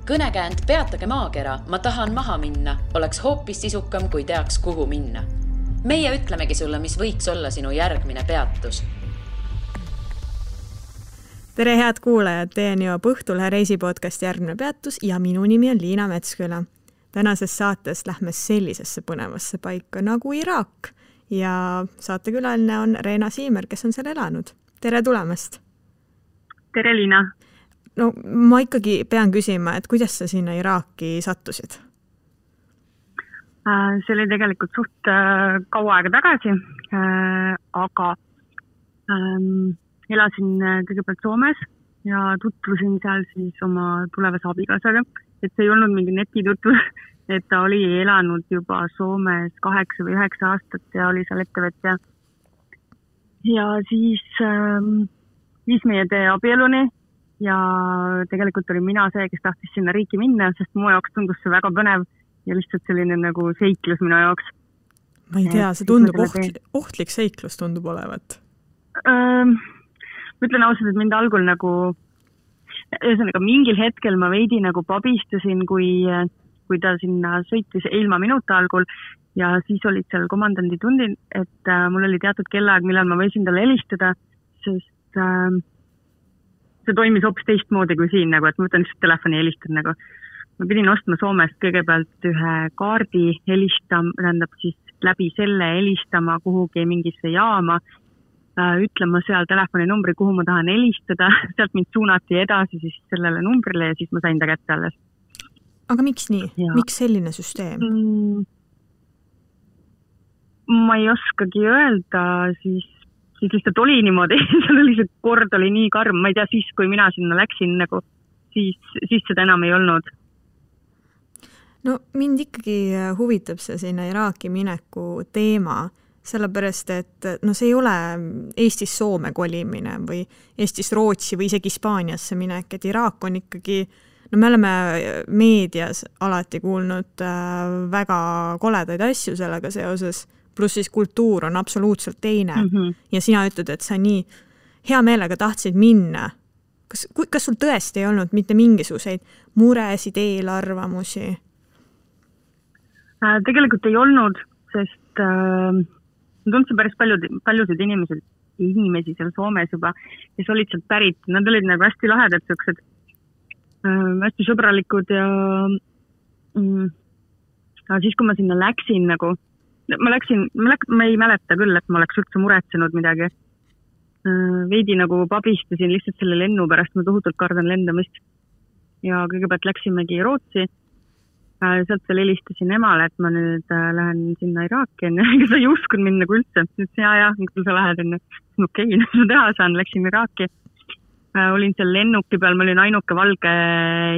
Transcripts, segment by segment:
Kõnekäänd Peatage maakera, ma tahan maha minna, oleks hoopis sisukam, kui teaks, kuhu minna. Meie ütlemegi sulle, mis võiks olla sinu järgmine peatus. Tere head kuulajad, teieni jõuab Õhtulehe reisipodcast järgmine peatus ja minu nimi on Liina Metsküla. Tänases saates lähme sellisesse põnevasse paika nagu Iraak ja saatekülaline on Reena Siimer, kes on seal elanud. Tere tulemast! Tere Liina! No ma ikkagi pean küsima, et kuidas sa sinna Iraaki sattusid? See oli tegelikult suht kaua aega tagasi, aga elasin kõigepealt Soomes ja tutvusin seal siis oma tulevase abikaasaga, et see ei olnud mingi netitutvus, et ta oli elanud juba Soomes 8 või 9 aastat ja oli seal ettevõtja. Ja siis viis meie tee abieluni ja tegelikult oli mina see, kes tahtis sinna riiki minna, sest mu jaoks tundus see väga põnev ja lihtsalt selline nagu seiklus minu jaoks. Ma ei tea, see tundub ohtlik seiklus tundub olevat. Ütlen ausalt, et mind algul nagu, ühesõnaga mingil hetkel ma veidi nagu pabistasin, kui ta sinna sõitis ilma minuta algul ja siis olid seal komandandi tundid, et mul oli teatud kellaaeg, millal ma võisin talle helistada, sest see toimis hoopis teistmoodi kui siin, nagu, et ma võtan lihtsalt telefoni helistan. Nagu. Ma pidin ostma Soomest kõigepealt ühe kaardi tähendab siis läbi selle helistama kuhugi mingisse jaama, ütlema seal telefoninumbri, kuhu ma tahan helistada, sealt mind suunati edasi siis sellele numbrile ja siis ma sain ta kätte alles. Aga miks nii? Ja. Miks selline süsteem? Ma ei oskagi öelda, siis lihtsalt oli niimoodi, seal oli see kord oli nii karm, ma ei tea siis, kui mina sinna läksin, nagu, siis seda enam ei olnud. No mind ikkagi huvitab see sinna Iraaki mineku teema, sellepärast, et no see ei ole Eestis Soome kolimine või Eestis Rootsi või isegi Hispaaniasse minek, et Iraak on ikkagi, no me oleme meedias alati kuulnud väga koledaid asju sellega seoses, pluss siis kultuur on absoluutselt teine ja sina ütled, et sa nii hea meelega tahtsid minna. Kas sul tõesti ei olnud mitte mingisuguseid muresid, eelarvamusi? Tegelikult ei olnud, sest tundsin päris paljusid inimesi seal Soomes juba, kes olid sealt pärit. Nad olid nagu hästi lahedad, sellised hästi sõbralikud ja siis, kui ma sinna läksin, nagu, ma ei mäleta küll, et ma oleks üldse muretsenud midagi. Veidi nagu pabistasin lihtsalt selle lennu pärast, ma tohutult kardan lendamist. Ja kõigepealt läksimegi Rootsi. Sealt veel helistasin emale, et ma nüüd lähen sinna Iraaki, kes ei uskunud mind nagu üldse. Nüüd ja, kui sa lähed enne. Okei, ma teha saan, läksin Iraaki. Olin seal lennuki peal, ma olin ainuke valge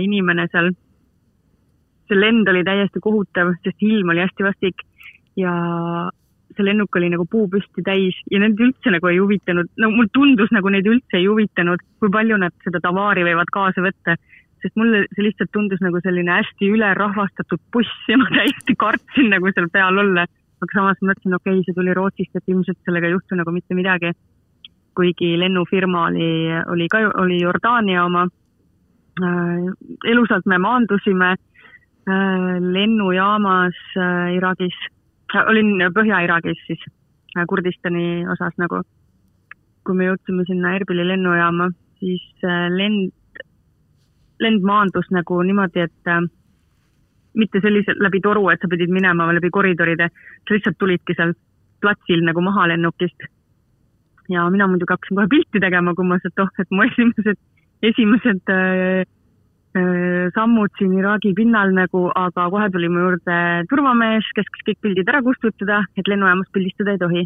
inimene seal. See lend oli täiesti kohutav, sest ilm oli hästi vastik ja see lennuk oli nagu puupüsti täis ja need üldse nagu ei huvitanud. No, mul tundus nagu neid üldse ei huvitanud, kui palju nad seda tavaari võivad kaasa võtta. Sest mulle see lihtsalt tundus nagu selline hästi ülerahvastatud buss ja ma täiesti kartsin nagu seal peal olla. Aga samas mõtlesin, okei, see tuli Rootsist, et ilmselt sellega ei juhtu nagu mitte midagi. Kuigi lennufirma oli Jordaania oma. Elusalt me maandusime lennujaamas Iraagis. Olin Põhja-Iraagis siis, Kurdistani osas nagu. Kui me jõudsime sinna Erbili lennujaama, siis lend maandus nagu niimoodi, et mitte selliselt läbi toru, et sa pidid minema läbi koridoride, sa lihtsalt tulidki seal platsil nagu maha lennukist. Ja mina muidugi hakkasin kohe pilti tegema, kui ma et mu esimesed sammud siin Iraagi pinnal nagu, aga kohe tuli mu juurde turvamees, kes kõik pildid ära kustutada, et lennujaamas pildistada ei tohi.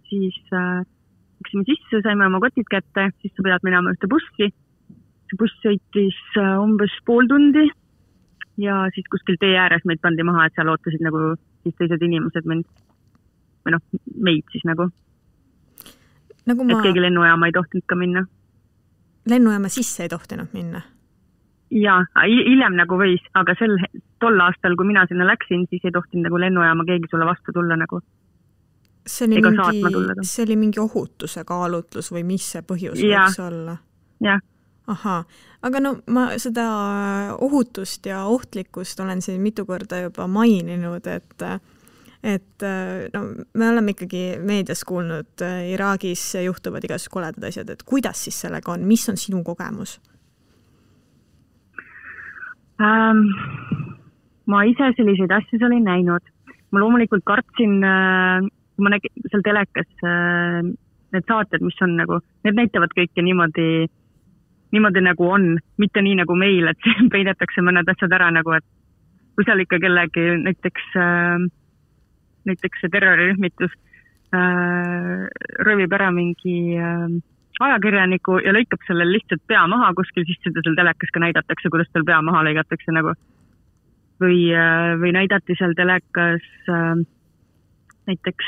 Siis läksime sisse, saime oma kotid kätte, siis sa pead minema ühte bussi. See buss sõitis umbes pool tundi ja siis kuskil tee ääres meid pandi maha, et seal ootasid nagu siis teised inimesed meid siis nagu. Et keegi lennujaama ei tohtinud ka minna. Lennujaama sisse ei tohtinud minna? Jaa, hiljem nagu võis, aga tol aastal, kui mina sinna läksin, siis ei tohtinud nagu lennujaama keegi sulle vastu tulla nagu. See oli mingi ohutuse kaalutlus või mis see põhjus võiks olla? Jah. Ahaa, aga no ma seda ohutust ja ohtlikkust olen siin mitu korda juba maininud, et no, me oleme ikkagi meedias kuulnud, Iraagis juhtuvad igasugused koledad asjad, et kuidas siis sellega on, mis on sinu kogemus? Ma ise selliseid asju olin näinud. Ma loomulikult kartsin, kui ma nägin seal telekas need saated, mis on nagu, need näitavad kõike niimoodi nagu on, mitte nii nagu meil, et peidetakse mõned asjad ära nagu, et kui seal ikka kellegi näiteks see terrorirühmitus röövib ära mingi ajakirjaniku ja lõikab sellel lihtsalt pea maha kuskil, siis seda seal telekas ka näidatakse, kuidas tal pea maha lõigatakse nagu. Või näidati seal telekas näiteks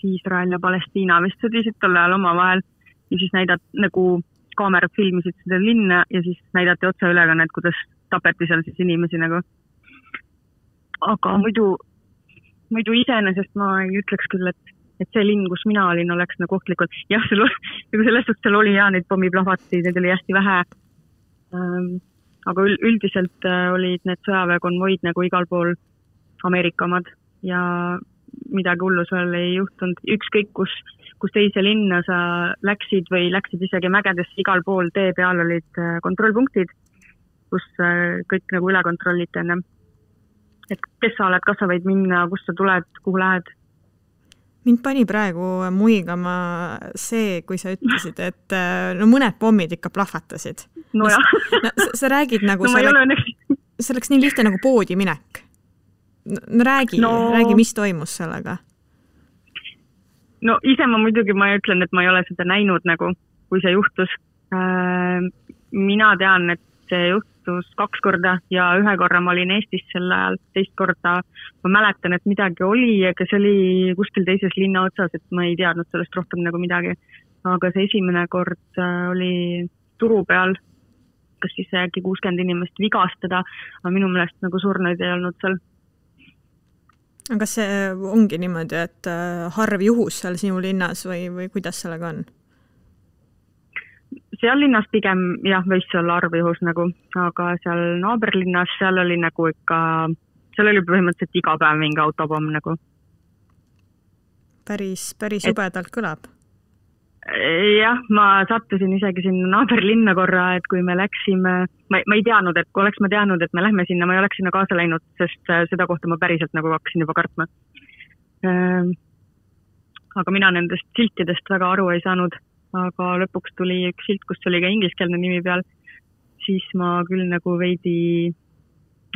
Iisrael ja Palestiina vist sõdisid tol ajal omavahel ja siis nagu kaamerad filmisid seda linna ja siis näidati otseülekannet, kuidas tapeti seal siis inimesi nagu. Aga muidu iseenesest ma ei ütleks küll, et see linn, kus mina olin, oleks nagu ohtlikult. Jah, selles suhtes seal oli neid pommiplahvati, need oli hästi vähe. Aga üldiselt olid need sõjaväekonvoid nagu igal pool Ameerika omad ja midagi hullu seal ei juhtunud. Ükskõik, kus teise linna sa läksid või läksid isegi mägedesse, igal pool tee peal olid kontrollpunktid, kus kõik nagu üle kontrolliti enne. Et kes sa oled, kas sa võid minna, kus sa tuled, kuhu lähed? Mind pani praegu muigama see, kui sa ütlesid, et no mõned pommid ikka plahvatasid. No jah. Sa räägid nagu, see oleks nii lihtne nagu poodi minek. No räägi, mis toimus sellega? No ise ma muidugi ma ütlen, et ma ei ole seda näinud nagu, kui see juhtus. Mina tean, et see juhtus 2 korda ja 1 korra ma olin Eestis sel ajal, 2 korda ma mäletan, et midagi oli, aga see oli kuskil teises linna otsas, et ma ei teadnud sellest rohkem nagu midagi. Aga see esimene kord oli turu peal, kas siis äkki 60 inimest vigastada, aga minu meelest nagu surnuid ei olnud seal. Aga kas see ongi niimoodi, et harv juhus seal sinu linnas või kuidas sellega on? Seal linnas pigem, jah, võis olla arvjuhus nagu, aga seal naaberlinnas, seal oli nagu ikka, seal oli põhimõtteliselt iga päev mingi autopomm nagu. Päris jubedalt kõlab. Jah, ma sattusin isegi sinna naaberlinna korra, et kui me läksime, ma ei teadnud, et kui oleks ma teadnud, et me lähme sinna, ma ei oleks sinna kaasa läinud, sest seda kohta ma päriselt nagu hakkasin juba kartma. Aga mina nendest siltidest väga aru ei saanud. Aga lõpuks tuli üks silt, kus oli ka ingliskeelne nimi peal, siis ma küll nagu veidi,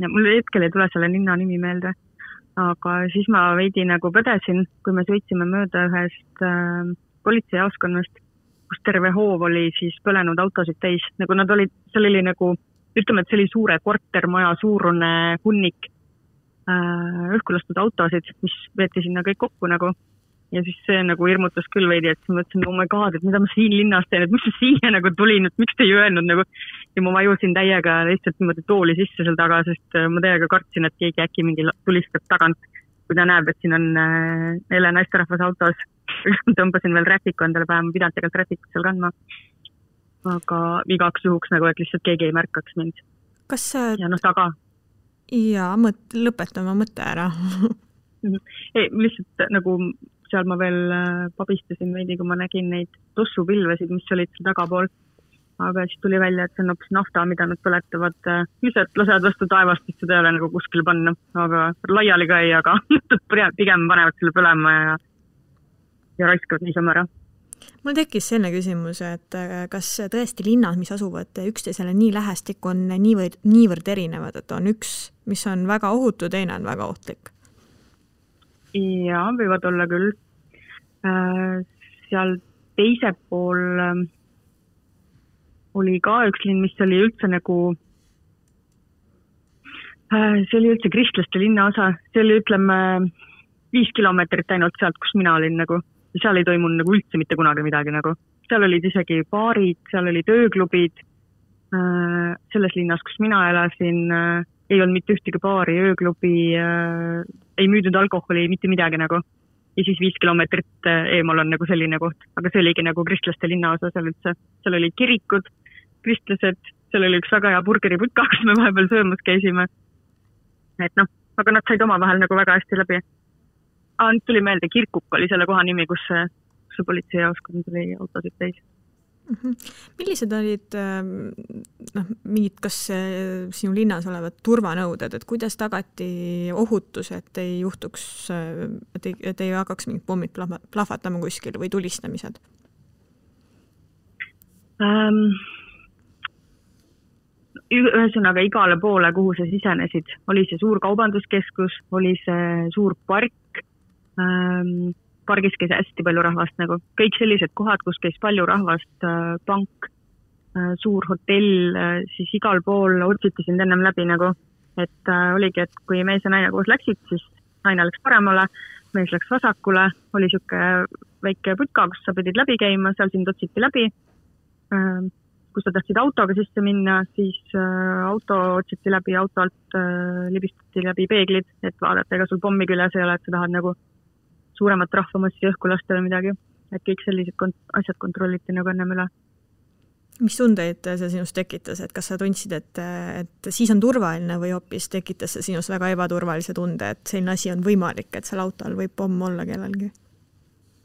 mul hetkel ei tule selle linna nimi meelde, aga siis ma veidi nagu põdesin, kui me sõitsime mööda ühest politseijaoskonnast, kus terve hoov oli siis põlenud autosid täis, nagu nad olid, seal oli nagu, ütleme, et see oli suure kortermaja suurune hunnik õhkulastud autosid, mis veeti sinna kõik kokku nagu. Ja siis see nagu hirmutas küll veidi, et ma mõtlesin, oh my god, et mida ma siin linnas teen, et mis see siia nagu tulin, et miks te ei öelnud nagu, ja ma vajusin täiega lihtsalt niimoodi tooli sisse seal taga, sest ma täiega kartsin, et keegi äkki mingi tulistab tagant, kui ta näeb, et siin on neile naisterahvas autos. Tõmbasin veel rätiku endale päeva, ma pidanud tegelikult rätikut seal kandma, aga igaks juhuks nagu, et lihtsalt keegi ei märkaks mind. Kas ja taga. Ja, lõpetama mõtte ära. Ei, lihtsalt nagu seal ma veel pabistasin veidi, kui ma nägin neid tossupilvesid, mis olid seal tagapool. Aga siis tuli välja, et see on hoopis nafta, mida nad põletavad. Lihtsalt lasevad vastu taevast, et seda ei ole nagu kuskil panna. Aga laiali ka ei, aga pigem panevad selle põlema ja raiskavad niisama ära. Mul tekkis selline küsimus, et kas tõesti linnad, mis asuvad üksteisele nii lähestik, on niivõrd erinevad, et on üks, mis on väga ohutu, teine on väga ohtlik? Ja, võivad olla küll. Seal teise pool oli ka üks linn, mis oli üldse nagu, see oli üldse kristlaste linna osa, see oli ütleme 5 kilomeetrit ainult sealt, kus mina olin nagu, ja seal ei toimunud nagu üldse mitte kunagi midagi nagu. Seal olid isegi baarid, seal olid ööklubid, selles linnas, kus mina elasin, ei olnud mitte ühtegi baari, ööklubi, ei müüdud alkoholi, mitte midagi nagu. Ja siis 5 kilomeetrit eemal on nagu selline koht. Aga see oligi nagu kristlaste linna osa seal üldse. Seal olid kirikud, kristlased, seal oli üks väga hea burgeriputka, kus me vahepeal söömas käisime. Et noh, aga nad said oma vahel nagu väga hästi läbi. Nüüd tuli meelde, Kirkuk oli selle koha nimi, kus see politseijaoskond tuli autosid täis. Millised olid mingid, kas sinu linnas olevad turvanõuded, et kuidas tagati ohutus, et ei juhtuks, et ei hakkaks mingid pommid plahvatama kuskil või tulistamised? Ühesõnaga igale poole, kuhu sa sisenesid, oli see suur kaubanduskeskus, oli see suur park, pargis käis hästi palju rahvast, nagu kõik sellised kohad, kus käis palju rahvast, pank, suur hotell, siis igal pool otsiti sind ennem läbi nagu, et oligi, et kui mees ja naine koos läksid, siis naine läks paremale, mees läks vasakule, oli siuke väike putka, kus sa pidid läbi käima, seal sind otsiti läbi. Kus sa tahtsid autoga sisse minna, siis auto otsiti läbi, auto alt libistati läbi peeglid, et vaadata, ega sul pommi küljes ei ole, et sa tahad nagu suuremat rahvamassi õhku lasta või midagi. Et kõik sellised asjad kontrolliti nagu ennem üle. Mis tundeid see sinust tekitas, et kas sa tundsid, et siis on turvaline või hoopis tekitas see sinust väga ebaturvalise tunde, et selline asi on võimalik, et seal autol võib pomm olla kellelgi?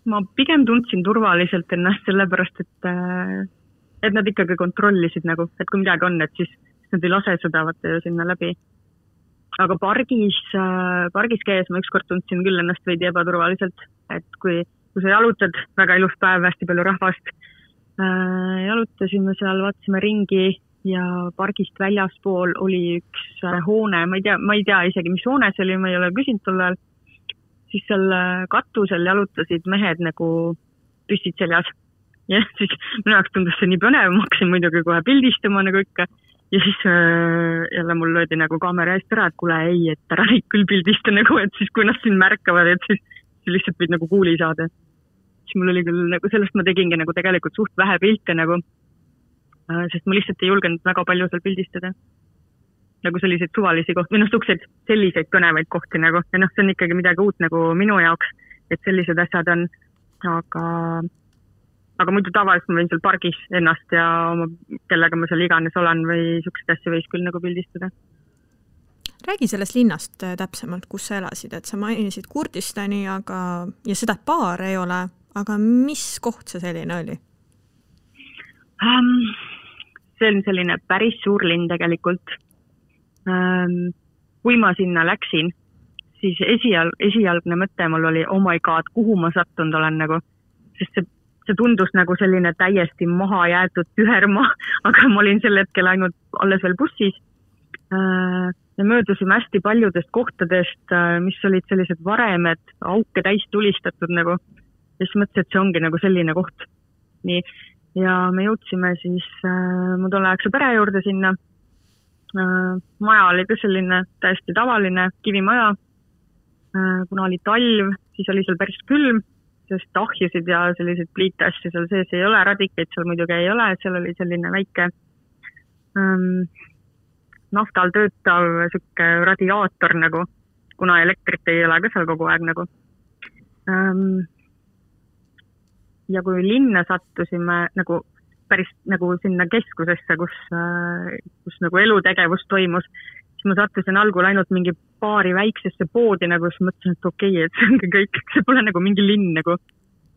Ma pigem tundsin turvaliselt ennast sellepärast, et nad ikkagi kontrollisid nagu, et kui midagi on, et siis nad ei lase seda vaata sinna läbi. Aga pargis käes ma ükskord tundsin küll ennast veidi ebaturvaliselt, et kui sa jalutad, väga ilus päev, hästi palju rahvast, jalutasime seal, vaatasime ringi ja pargist väljaspool oli üks hoone, ma ei tea isegi, mis hoone see oli, ma ei ole küsinud tol ajal, siis seal katusel jalutasid mehed nagu püstid seljas. Ja siis minu jaoks tundus see nii põnev, ma hakkasin muidugi kohe pildistama nagu ikka ja siis jälle mul löödi nagu kaamera eest ära, et kuule ei, et ära neid küll pildista nagu, et siis kui nad siin märkavad, et siis lihtsalt võid nagu kuuli saada. Siis mul oli küll nagu, sellest ma tegingi nagu tegelikult suht vähe pilte nagu, sest ma lihtsalt ei julgenud väga palju seal pildistada. Nagu selliseid suvalisi kohti, või selliseid põnevaid kohti nagu, ja see on ikkagi midagi uut nagu minu jaoks, et sellised asjad on, aga muidu tavaliselt ma võin seal pargis ennast ja kellega ma seal iganes olen või sukseid asju võis küll nagu pildistada. Räägi sellest linnast täpsemalt, kus sa elasid, et sa mainisid Kurdistani, ja seda baar ei ole, aga mis koht see selline oli? See on selline päris suur linn tegelikult. Kui ma sinna läksin, siis esialgne mõte mul oli, oh my god, kuhu ma sattunud olen nagu, sest see tundus nagu selline täiesti maha jäetud tühermaa, aga ma olin sel hetkel ainult alles veel bussis. Me möödusime hästi paljudest kohtadest, mis olid sellised varemed, auke täis tulistatud nagu. Ja siis mõtlesin, et see ongi nagu selline koht. Nii. Ja me jõudsime siis mu tolleaegse pere juurde sinna. Maja oli ka selline täiesti tavaline kivimaja. Kuna oli talv, siis oli seal päris külm, sest ahjusid ja sellised pliitasju seal sees ei ole, radikeid seal muidugi ei ole, seal oli selline väike naftal töötav sükke radiaator nagu, kuna elektrit ei ole ka seal kogu aeg nagu. Ja kui linna sattusime nagu päris nagu sinna keskusesse, kus nagu elutegevus toimus, siis ma sattusin algul ainult mingi paari väiksesse poodi, nagu siis mõtlesin, et okei, et see ongi kõik, see pole nagu mingi linn nagu.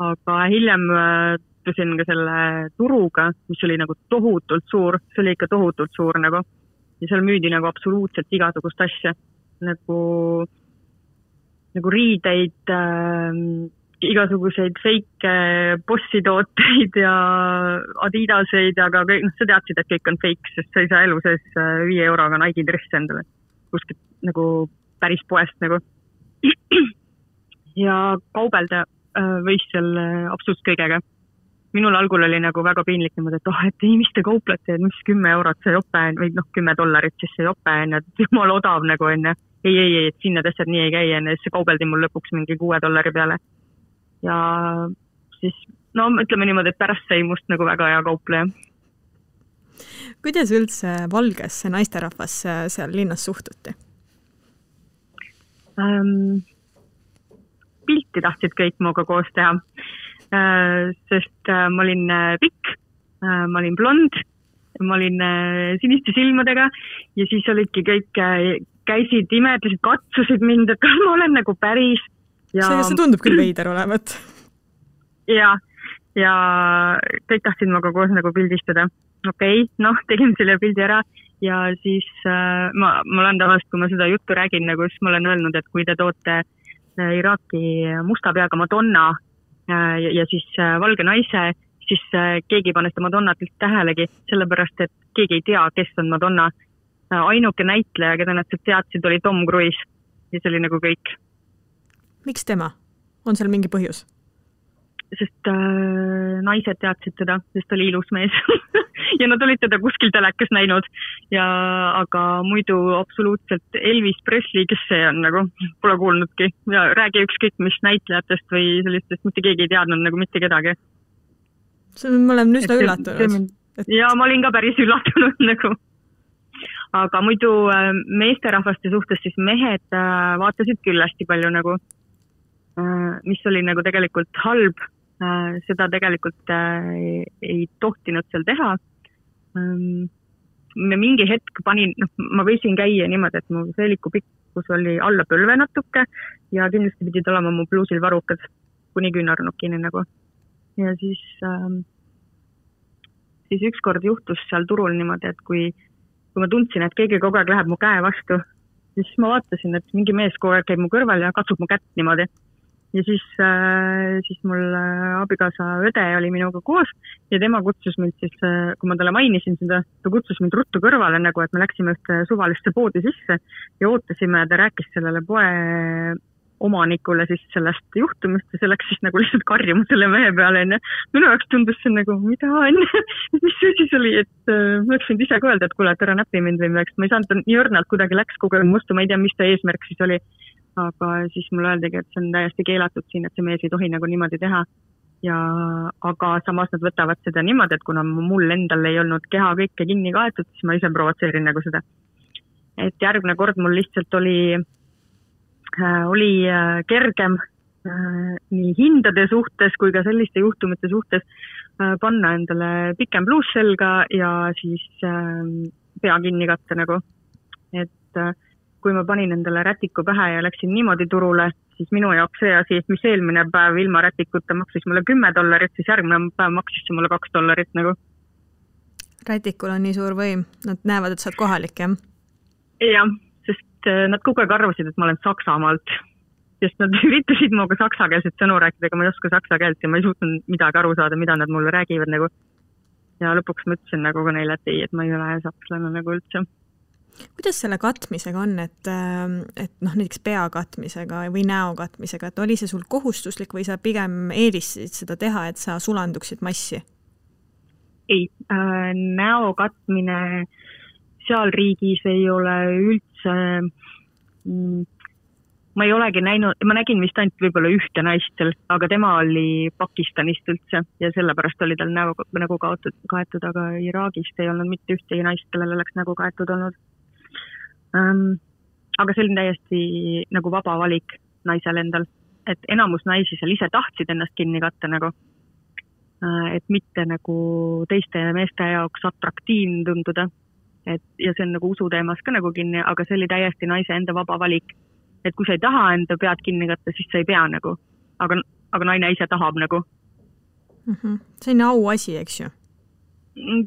Aga hiljem tusin ka selle turuga, mis oli nagu tohutult suur, see oli ikka tohutult suur nagu. Ja seal müüdi nagu absoluutselt igasugust asja, nagu riideid, igasuguseid feike bossitooteid ja Adidaseid, aga kõik, sa teadsid, et kõik on fake, sest sa ei saa elu sees 5 euroga Nike dress endale kuskilt nagu päris poest nagu. Ja kaubelda võis seal absoluutselt kõigega. Minul algul oli nagu väga piinlik niimoodi, et ei, mis te kauplete, mis 10 eurot see jope või $10, siis see jope enne, et jumal odav nagu enne. Ei, et sinna asjad nii ei käi enne, siis see kaubeldi mul lõpuks mingi $6 peale. Ja siis, ütleme niimoodi, et pärast sai must nagu väga hea kaupleja. Kuidas üldse valgesse naisterahvasse seal linnas suhtuti? Pilti tahtsid kõik muuga koos teha, sest ma olin pikk, ma olin blond ma olin siniste silmadega ja siis olidki kõik, käisid, imetasid, katsusid mind, et kas ma olen nagu päris. Ja see tundub küll veider olevat. Ja kõik tahtsid maga koos nagu pildistada. Okei, tegin selle pildi ära ja siis ma olen tavaliselt, kui ma seda juttu räägin, nagu siis ma olen öelnud, et kui te toote Iraaki musta peaga Madonna ja siis valge naise, siis keegi ei pane seda Madonnat tähelegi, sellepärast, et keegi ei tea, kes on Madonna. Ainuke näitleja, keda nad teadsid, oli Tom Cruise ja see oli nagu kõik. Miks tema? On seal mingi põhjus? Sest naised teadsid teda, sest oli ilus mees ja nad olid teda kuskil telekas näinud aga muidu absoluutselt Elvis Presley, kes see on nagu, pole kuulnudki ja räägi ükskõik mis näitlejatest või sellistest, mitte keegi ei teadnud nagu mitte kedagi. Ma olen üsna üllatunud. Ja ma olin ka päris üllatunud nagu. Aga muidu meesterahvaste suhtes siis mehed vaatasid küll hästi palju nagu, mis oli nagu tegelikult halb. Seda tegelikult ei tohtinud seal teha. Mingi hetk panin, ma võisin käia niimoodi, et mu seeliku pikkus oli alla põlve natuke ja kindlasti pidid olema mu bluusil varrukad kuni küünarnukini nagu. Ja siis ükskord juhtus seal turul niimoodi, et kui ma tundsin, et keegi kogu aeg läheb mu käe vastu, siis ma vaatasin, et mingi mees kogu aeg käib mu kõrval ja katsub mu kätt niimoodi. Ja siis mul abikaasa õde oli minuga koos ja tema kutsus mind siis, kui ma talle mainisin seda, ta kutsus mind ruttu kõrvale nagu, et me läksime ühte suvalisse poodi sisse ja ootasime ja ta rääkis sellele poe omanikule siis sellest juhtumist ja see läks siis nagu lihtsalt karjuma selle mehe peale. Minu jaoks tundus see nagu, mida on? Mis see siis oli, et ma oleks võinud ise ka öelda, et kuule, et ära näpi mind või midagi. Ma ei saanud nii õrnalt kuidagi läks kogu aeg mustu, ma ei tea, mis ta eesmärk siis oli. Aga siis mulle öeldagi, et see on täiesti keelatud siin, et see mees ei tohi nagu niimoodi teha. Aga samas nad võtavad seda niimoodi, et kuna mul endal ei olnud keha kõike kinni kaetud, siis ma ise provotseerin nagu seda. Et järgmine kord mul lihtsalt oli kergem nii hindade suhtes kui ka selliste juhtumite suhtes panna endale pikem bluus selga ja siis pea kinni katta nagu. Et kui ma panin endale rätiku pähe ja läksin niimoodi turule, siis minu jaoks see asi, mis eelmine päev ilma rätikuta maksis mulle $10, siis järgmine päev maksis see mulle $2 nagu. Rätikul on nii suur võim, nad näevad, et sa oled kohalik, jah? Jah, sest nad kogu aeg arvasid, et ma olen Saksamaalt, sest nad üritasid minuga saksakeelset sõnu rääkida, aga ma ei oska saksa keelt ja ma ei suutnud midagi aru saada, mida nad mulle räägivad nagu. Ja lõpuks ma ütlesin nagu ka neile, et ei, et ma ei ole sakslane nagu üldse. Kuidas selle katmisega on, et näiteks pea katmisega või näo katmisega, et oli see sul kohustuslik või sa pigem eelistasid seda teha, et sa sulanduksid massi? Ei, näo katmine seal riigis ei ole üldse, ma ei olegi näinud, ma nägin vist ainult võib-olla ühte naist seal, aga tema oli Pakistanist üldse ja sellepärast oli tal nägu kaetud, aga Iraagist ei olnud mitte ühtegi naist, kellel oleks nägu kaetud olnud. Aga see oli täiesti nagu vaba valik naisel endal, et enamus naisi seal ise tahtsid ennast kinni katta nagu, et mitte nagu teiste meeste jaoks atraktiivne tunduda, ja see on nagu usuteemas ka nagu kinni, aga see oli täiesti naise enda vaba valik, et kui sa ei taha enda pead kinni katta, siis sa ei pea nagu, aga naine ise tahab nagu. See on au asi, eks ju?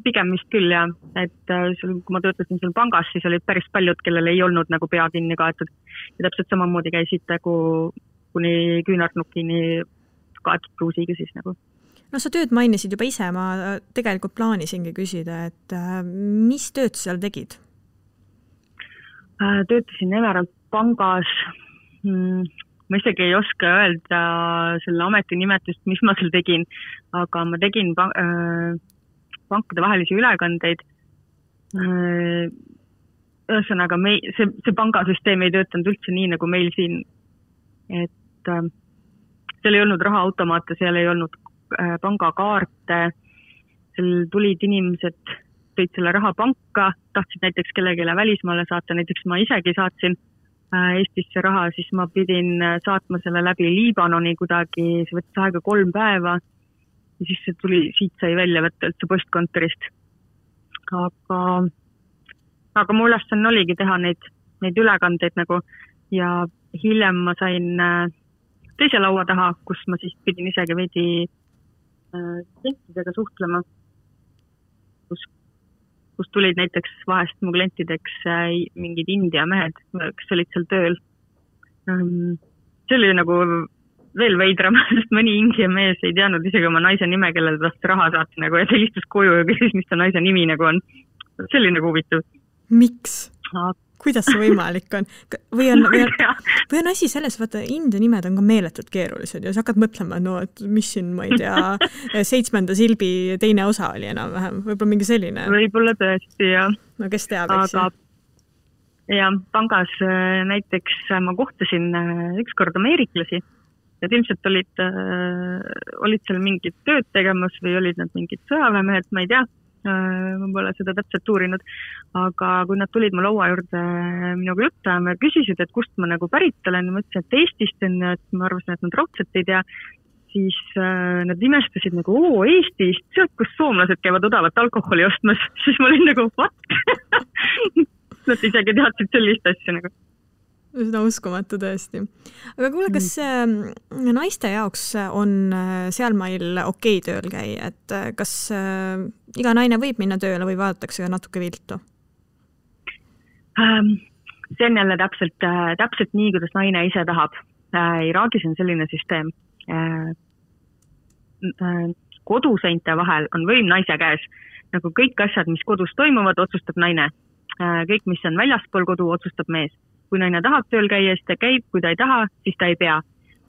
Pigem vist küll, jah. Et kui ma töötasin seal pangas, siis olid päris paljud, kellel ei olnud nagu pea kinni kaetud. Ja täpselt samamoodi käisid nagu kuni küünarnukini kaetud bluusiga siis nagu. No sa tööd mainisid juba ise, ma tegelikult plaanisingi küsida, et mis tööd seal tegid? Töötasin Emerald pangas. Ma isegi ei oska öelda selle ametinimetust, mis ma seal tegin, aga ma tegin pankade vahelisi ülekandeid. Ühesõnaga, see pangasüsteem ei töötanud üldse nii nagu meil siin, et seal ei olnud rahaautomaate, seal ei olnud pangakaarte, seal tulid inimesed, tõid selle raha panka, tahtsid näiteks kellegile välismaale saata, näiteks ma isegi saatsin Eestisse raha, siis ma pidin saatma selle läbi Liibanoni kuidagi, see võttis aega 3 päeva ja siis see tuli, siit sai välja võtta üldse postkontorist. aga mu ülesanne oligi teha neid ülekandeid nagu ja hiljem ma sain teise laua taha, kus ma siis pidin isegi veidi klientidega suhtlema, kus tulid näiteks vahest mu klientideks mingid India mehed, kes olid seal tööl. See oli nagu veel veidram, sest mõni India mees ei teadnud isegi oma naise nime, kellele tahtis raha saata nagu, ja ta istus koju ja küsis, mis ta naise nimi nagu on. See oli nagu huvitav. Miks? Kuidas see võimalik on? Või on asi selles, vaata, India nimed on ka meeletult keerulised ja sa hakkad mõtlema, no, et mis siin, ma ei tea, 7. silbi teine osa oli enam-vähem, võib-olla mingi selline. Võib-olla tõesti, jah. No kes teab, eks? Ja pangas näiteks ma kohtasin ükskord ameeriklasi, et ilmselt olid seal mingid tööd tegemas või olid nad mingid sõjaväemehed, ma ei tea. Ma pole seda täpselt uurinud, aga kui nad tulid mu laua juurde minuga juttu ja küsisid, et kust ma nagu pärit olen ja ma ütlesin, et Eestist on, et ma arvasin, et nad raudselt ei tea, siis nad imestasid nagu, Eestist, sealt, kus soomlased käivad odavat alkoholi ostmas, siis ma olin nagu, what? Nad isegi teadsid sellist asja nagu. Seda uskumatu tõesti. Aga kuule, kas naiste jaoks on sealmail okei tööl käi, et kas iga naine võib minna tööle või vaadatakse natuke viltu? See on jälle täpselt nii, kuidas naine ise tahab. Iraagis on selline süsteem. Koduseinte vahel on võim naise käes. Nagu kõik asjad, mis kodus toimuvad, otsustab naine. Kõik, mis on väljaspool kodu, otsustab mees. Kui naine tahab tööl käia, siis ta käib, kui ta ei taha, siis ta ei pea.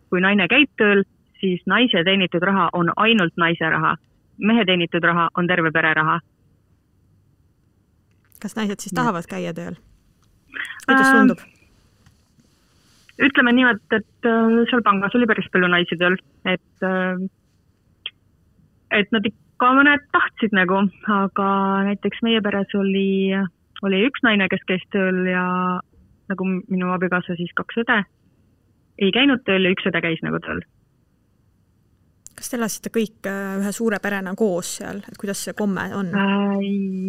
Kui naine käib tööl, siis naise teenitud raha on ainult naise raha. Mehe teenitud raha on terve pere raha. Kas naised siis tahavad käia tööl? Kuidas tundub? Ütleme niimoodi, et seal pangas oli päris palju naisi tööl, et nad ikka mõned tahtsid nagu, aga näiteks meie peres oli üks naine, kes käis tööl ja nagu minu abikaasa siis 2 õde ei käinud tööl ja 1 õde käis nagu tööl. Kas te elasite kõik ühe suure perena koos seal, et kuidas see komme on?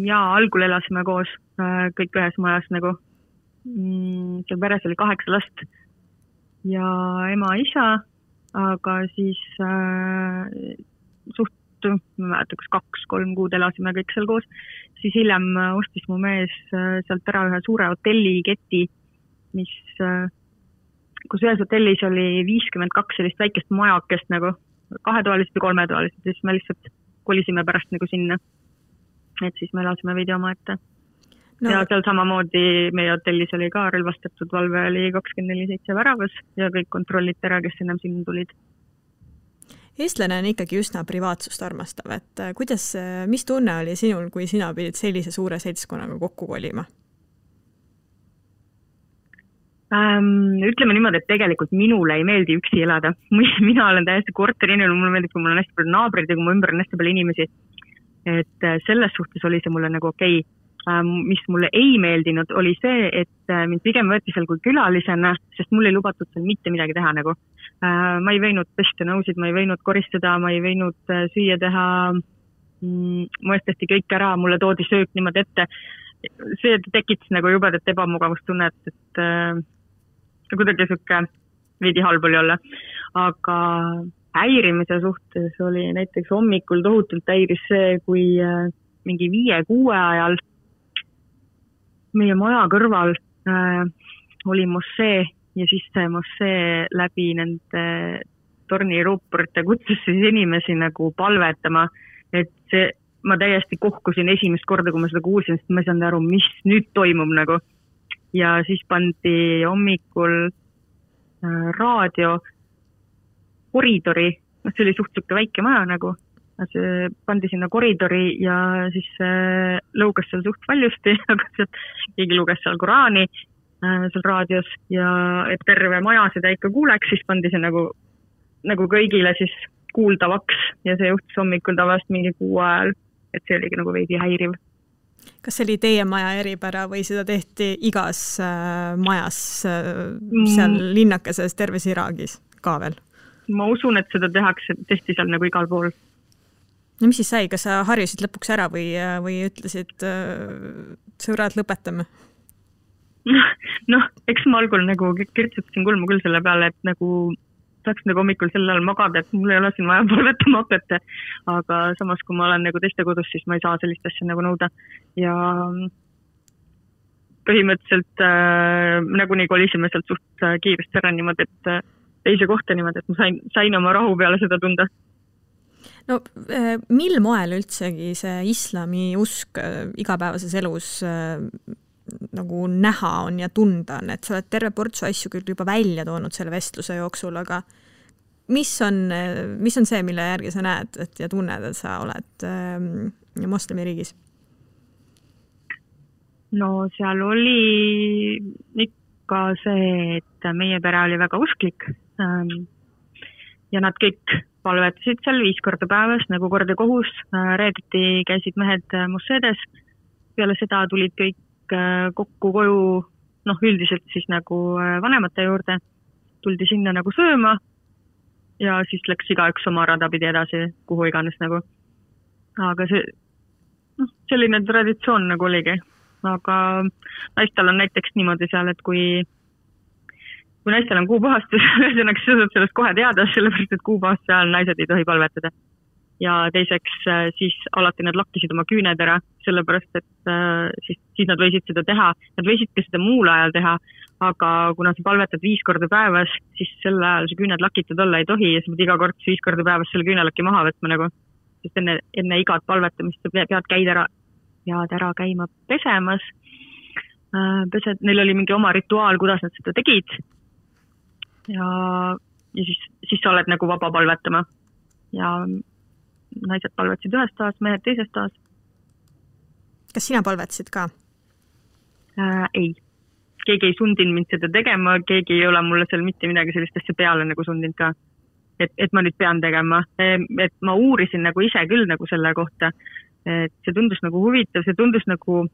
Jaa, algul elasime koos kõik ühes majas nagu. Seal peres oli 8 last ja ema, isa, aga siis ma mäletan, kas 2-3 kuud elasime kõik seal koos, siis hiljem ostis mu mees sealt ära ühe suure hotelliketi, kus ühes hotellis oli 52 sellist väikest majakest nagu 2-toalised või 3-toalised, siis me lihtsalt kolisime pärast nagu sinna, et siis me elasime veidi oma ette. No. Ja seal samamoodi meie hotellis oli ka relvastatud valve, oli 24/7 väravas ja kõik kontrolliti ära, kes enam sinna tulid. Eestlane on ikkagi üsna privaatsust armastav, et mis tunne oli sinul, kui sina pidid sellise suure seltskonnaga kokku kolima? Ütleme niimoodi, et tegelikult minule ei meeldi üksi elada. Mina olen täiesti korterinimene, mulle meeldib, kui mul on hästi palju naabrid ja kui mu ümber on hästi palju inimesi. Et selles suhtes oli see mulle nagu okei. Mis mulle ei meeldinud, oli see, et mind pigem võeti seal kui külalisena, sest mul ei lubatud seal mitte midagi teha nagu. Ma ei võinud pesta nõusid, ma ei võinud koristada, ma ei võinud süüa teha, mu eest tehti kõik ära, mulle toodi söök niimoodi ette. See tekitas nagu jubedat ebamugavustunnet, et kuidagi siuke veidi halb oli olla. Aga häirimise suhtes oli näiteks hommikul tohutult häiris see, kui mingi 5-6 ajal meie maja kõrval oli mossee ja siis see mossee läbi nende torniruupurite kutsus siis inimesi nagu palvetama, et ma täiesti kohkusin esimest korda, kui ma seda kuulsin, sest ma ei saanud aru, mis nüüd toimub nagu. Ja siis pandi hommikul raadio koridori, see oli suhteliselt väike maja nagu, see pandi sinna koridori ja siis lõugas seal suht valjusti, aga keegi luges seal Koraani seal raadios ja et terve maja seda ikka kuuleks, siis pandi see nagu kõigile siis kuuldavaks ja see juhtus hommikul tavaliselt mingi 6 ajal, et see oligi nagu veidi häiriv. Kas see oli teie maja eripära või seda tehti igas majas seal linnakeses terves Iraagis ka veel? Ma usun, et seda tehti seal nagu igal pool. No mis siis sai, kas sa harjusid lõpuks ära või ütlesid sõbrad lõpetame? Noh, eks ma algul nagu kirtsutasin kulmu küll selle peale, et nagu saaks nagu hommikul sel ajal magada, et mul ei ole siin vaja palvetama hakata, aga samas kui ma olen nagu teiste kodus, siis ma ei saa sellist asja nagu nõuda ja põhimõtteliselt nagunii kolisime sealt suht kiiresti ära niimoodi, et teise kohta niimoodi, et ma sain oma rahu peale seda tunda. No mil moel üldsegi see islami usk igapäevases elus nagu näha on ja tunda on, et sa oled terve portsu asju küll juba välja toonud selle vestluse jooksul, aga mis on see, mille järgi sa näed ja tunned, et sa oled moslemiriigis? No seal oli ikka see, et meie pere oli väga usklik ja nad kõik palvetasid seal 5 korda päevas, nagu kord ja kohus. Reedeti käisid mehed musseedes. Peale seda tulid kõik kokku koju, üldiselt siis nagu vanemate juurde. Tuldi sinna nagu sööma ja siis läks igaüks oma rada pidi edasi, kuhu iganes nagu. Aga selline traditsioon nagu oligi. Aga naistel on näiteks niimoodi seal, et kui naistel on kuupuhastus, ühesõnaga sa saad sellest kohe teada, sellepärast, et kuupuhastuse ajal naised ei tohi palvetada. Ja teiseks siis alati nad lakkisid oma küüned ära, sellepärast, et siis nad võisid seda teha. Nad võisid ka seda muul ajal teha, aga kuna sa palvetad 5 korda päevas, siis sel ajal see küüned lakitud olla ei tohi ja sa pead iga kord 5 korda päevas selle küünelaki maha võtma nagu. Sest enne igat palvetamist sa pead ära käima pesemas. Neil oli mingi oma rituaal, kuidas nad seda tegid. Ja siis sa oled nagu vaba palvetama. Ja naised palvetasid ühes toas, mehed teises toas. Kas sina palvetasid ka? Ei. Keegi ei sundinud mind seda tegema, keegi ei ole mulle seal mitte midagi sellist asja peale nagu sundinud ka. Et ma nüüd pean tegema. Et ma uurisin nagu ise küll nagu selle kohta. Et see tundus nagu huvitav, see tundus nagu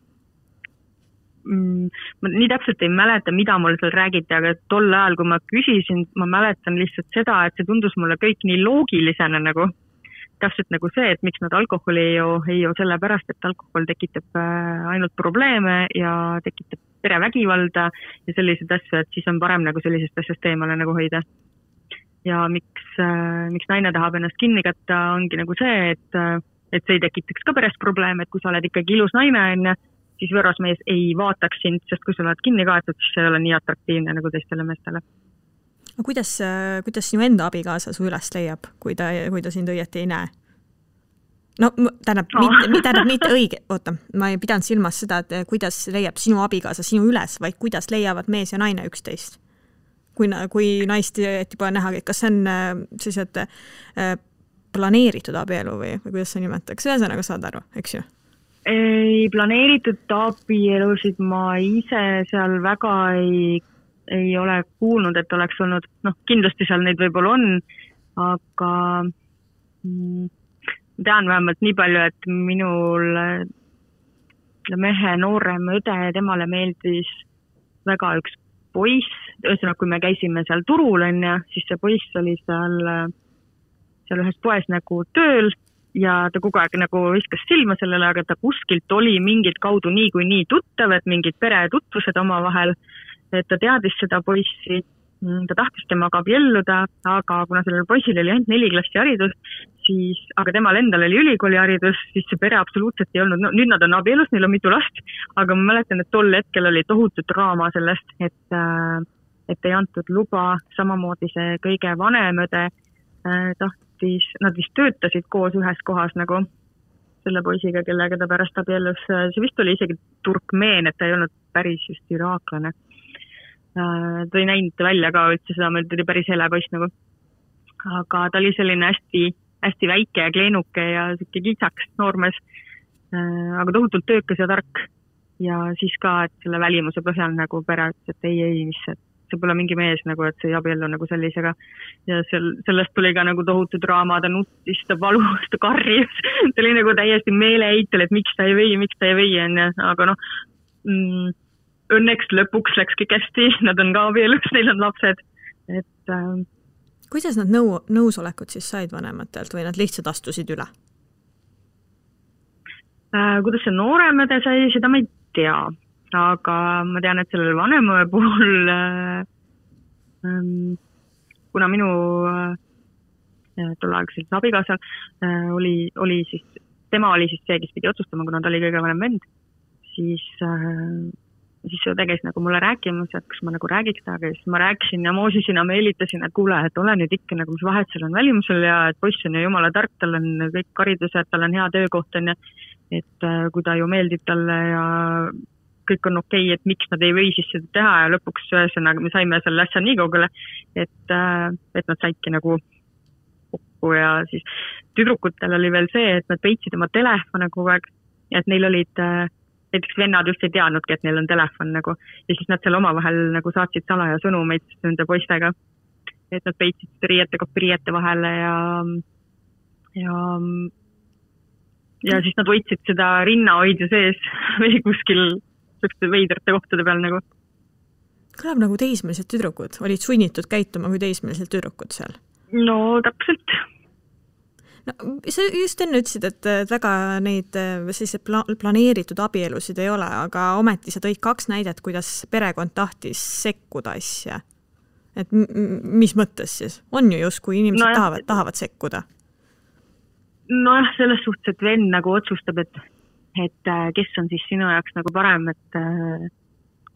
ma nii täpselt ei mäleta, mida mulle seal räägiti, aga tol ajal, kui ma küsisin, ma mäletan lihtsalt seda, et see tundus mulle kõik nii loogilisena nagu. Täpselt nagu see, et miks nad alkoholi ei joo sellepärast, et alkohol tekitab ainult probleeme ja tekitab perevägivalda ja sellised asju, et siis on parem nagu sellisest asjast eemale nagu hoida. Ja miks naine tahab ennast kinni katta, ongi nagu see, et see ei tekitaks ka perest probleeme, et kui sa oled ikkagi ilus naine, siis võrrasmees ei vaataks sind, sest kui sa oled kinni kaetud, siis see ei ole nii atraktiivne nagu teistele meestele. Kuidas sinu enda abikaasa su üles leiab, kui ta sind õieti ei näe? No, tähendab mitte õige, ma ei pidanud silmas seda, et kuidas leiab sinu abikaasa sinu üles, vaid kuidas leiavad mees ja naine üksteist. Kui naist juba näha, kas see on sellised planeeritud abielu või kuidas sa nimetaks? Ühesõnaga saad aru, eks ju? Ei planeeritud abielusid ma ise seal väga ei ole kuulnud, et oleks olnud, kindlasti seal neid võib-olla on, aga tean vähemalt nii palju, et minul mehe noorem õde, temale meeldis väga üks poiss, ühesõnaga kui me käisime seal turul, siis see poiss oli seal ühes poes nagu tööl ja ta kogu aeg nagu viskas silma sellele, aga ta kuskilt oli mingid kaudu nii tuttav, et mingid peretutvused oma vahel, et ta teadis seda poissi, ta tahtis temaga abielluda, aga kuna sellel poisil oli ainult 4 klassi haridus, aga temal endal oli ülikooli haridus, siis see pere absoluutselt ei olnud, nüüd nad on abielus, neil on mitu last, aga ma mäletan, et tol hetkel oli tohutu draama sellest, et ei antud luba, samamoodi see kõige vanem õde nad vist töötasid koos ühes kohas nagu selle poisiga, kellega ta pärast abiellus. See vist oli isegi turkmeen, et ta ei olnud päris just iraaklane. Ta ei näinud välja ka üldse seda, meil tuli päris hele poiss nagu. Aga ta oli selline hästi väike ja kleenuke ja siuke kitsaks noormees, aga tohutult töökas ja tark. Ja siis ka, et selle välimuse põhjal nagu pere ütles, et ei, mis see pole mingi mees nagu, et see ei abiellu nagu sellisega. Ja sellest tuli ka nagu tohutu draama, ta nuttis, ta valus, ta karjus. Ta oli nagu täiesti meeleheitel, et miks ta ei või. Aga õnneks lõpuks läks kõik hästi, nad on ka abielus, neil on lapsed. Kuidas nad nõusolekut siis said vanematelt või nad lihtsalt astusid üle? Kuidas see nooremõde sai, seda ma ei tea, aga ma tean, et sellel vanemõe puhul, kuna minu tolleaegselt abikaasal oli siis, tema oli siis see, kes pidi otsustama, kuna ta oli kõige vanem vend, siis ta käis nagu mulle rääkimas, et kas ma nagu räägiks taga, siis ma rääkisin ja moosisin ja meelitasin, et kuule, et ole nüüd ikka nagu, mis vahet seal on välimusel ja et poiss on ju jumala tark, tal on kõik haridused, tal on hea töökoht on ja et kui ta ju meeldib talle ja kõik on okei, et miks nad ei või siis seda teha ja lõpuks ühesõnaga me saime selle asja nii kaugele, et nad saidki nagu kokku ja siis tüdrukutel oli veel see, et nad peitsid oma telefone kogu aeg ja et neil olid, näiteks vennad just ei teadnudki, et neil on telefon nagu ja siis nad seal omavahel nagu saatsid salaja sõnumeid nende poistega, et nad peitsid riiete vahele ja siis nad võitsid seda rinnahoidja sees või kuskil veidrate kohtade peal nagu. Kõlab nagu teismelised tüdrukud, olid sunnitud käituma kui teismelised tüdrukud seal? No täpselt. No, sa just enne ütlesid, et väga neid planeeritud abielusid ei ole, aga ometi sa tõid 2 näidet, kuidas perekond tahtis sekkuda asja. Et mis mõttes siis? On ju just, kui inimesed tahavad sekkuda? Nojah, selles suhtes, et vend nagu otsustab, et kes on siis sinu jaoks nagu parem, et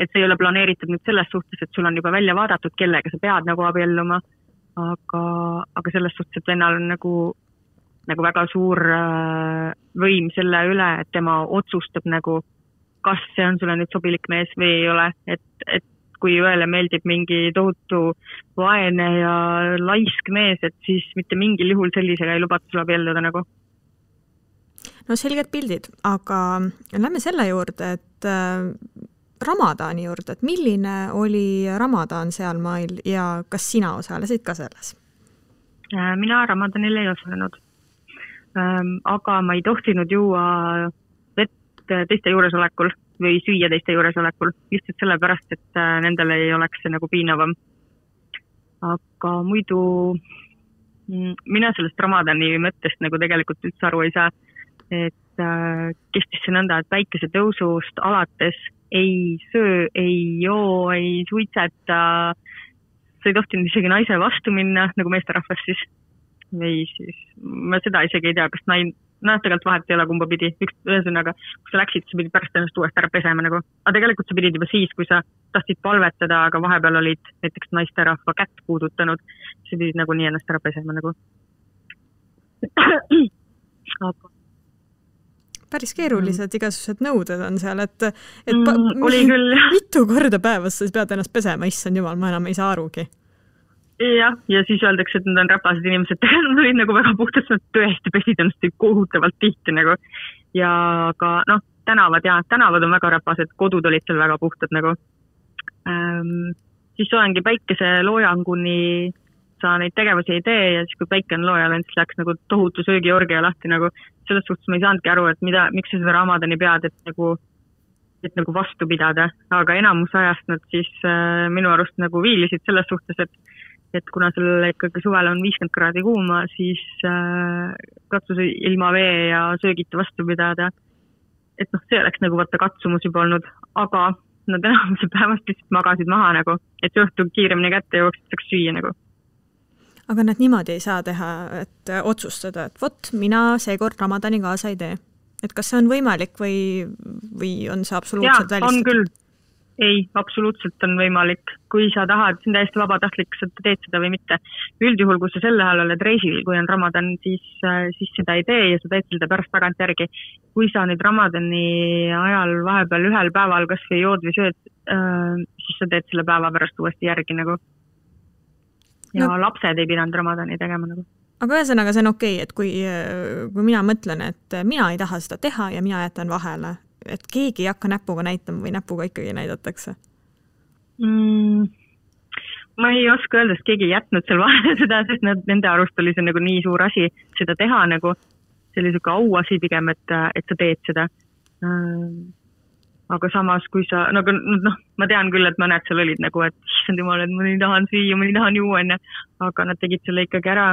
see ei ole planeeritud nüüd selles suhtes, et sul on juba välja vaadatud, kellega sa pead nagu abielluma, aga selles suhtes, et vennal on nagu väga suur võim selle üle, et tema otsustab nagu, kas see on sulle nüüd sobilik mees või ei ole, et kui ühele meeldib mingi tohutu vaene ja laisk mees, et siis mitte mingil juhul sellisega ei lubata sul abielluda nagu. No selged pildid, aga lähme selle juurde, et Ramadani juurde, et milline oli Ramadan seal mail ja kas sina osalesid ka selles? Mina Ramadanil ei osalenud, aga ma ei tohtinud juua vett teiste juuresolekul või süüa teiste juuresolekul, lihtsalt sellepärast, et nendel ei oleks see nagu piinavam. Aga muidu mina sellest Ramadani mõttest nagu tegelikult üldse aru ei saa, et kestis see nõnda, et päikese tõusust alates ei söö, ei joo, ei suitseta, sa ei tohtinud isegi naise vastu minna, nagu meesterahvas siis, või siis ma seda isegi ei tea, kas tegelikult vahet ei ole kumba pidi, ühesõnaga, kui sa läksid, sa pidid pärast ennast uuesti ära pesema nagu, aga tegelikult sa pidid juba siis, kui sa tahtsid palvetada, aga vahepeal olid näiteks naisterahva kätt puudutanud, sa pidid nagu nii ennast ära pesema nagu. Päris keerulised igasugused nõuded on seal, et oli küll. Mitu korda päevas sa pead ennast pesema, issand jumal, ma enam ei saa arugi. Ja siis öeldakse, et nad on räpased inimesed, nad olid nagu väga puhtad, nad tõesti pesid ennast kohutavalt tihti nagu. Ja ka tänavad on väga räpased, kodud olid seal väga puhtad nagu. Siis ongi päikese loojanguni sa neid tegevusi ei tee ja siis kui päike on loojal, siis läks nagu tohutu söögiorgia lahti nagu. Selles suhtes ma ei saanudki aru, et miks sa seda Ramadani pead, et nagu vastu pidada, aga enamus ajast nad siis minu arust nagu viilisid selles suhtes, et kuna sellele ikkagi suvel on 50 kraadi kuuma, siis katsus ilma vee ja söögita vastu pidada. Et see oleks nagu vaata katsumus juba olnud, aga nad enamuse päevast lihtsalt magasid maha nagu, et see õhtu kiiremini kätte jooksid, saaks süüa nagu. Aga nad niimoodi ei saa teha, et otsustada, et vot, mina seekord Ramadani kaasa ei tee. Et kas see on võimalik või on see absoluutselt välistatud? On küll. Ei, absoluutselt on võimalik. Kui sa tahad, see on täiesti vabatahtlik, sa teed seda või mitte. Üldjuhul, kui sa selle ajal oled reisil, kui on Ramadan, siis seda ei tee ja sa teed seda pärast tagant järgi. Kui sa nüüd Ramadani ajal vahepeal ühel päeval kas või jood või sööd, siis sa teed selle päeva pärast uuesti järgi nagu. Ja lapsed ei pidanud Ramadani tegema nagu. Aga ühesõnaga see on okei, et kui mina mõtlen, et mina ei taha seda teha ja mina jätan vahele, et keegi ei hakka näpuga näitama või näpuga ikkagi näidatakse? Ma ei oska öelda, et keegi ei jätnud seal vahele seda, sest nende arust oli see nagu nii suur asi seda teha nagu, see oli selline auasi pigem, et sa teed seda. Aga samas, kui sa, ma tean küll, et mõned seal olid nagu, et issand jumal, et ma ei tahan süüa, ma ei tahan juua, aga nad tegid selle ikkagi ära,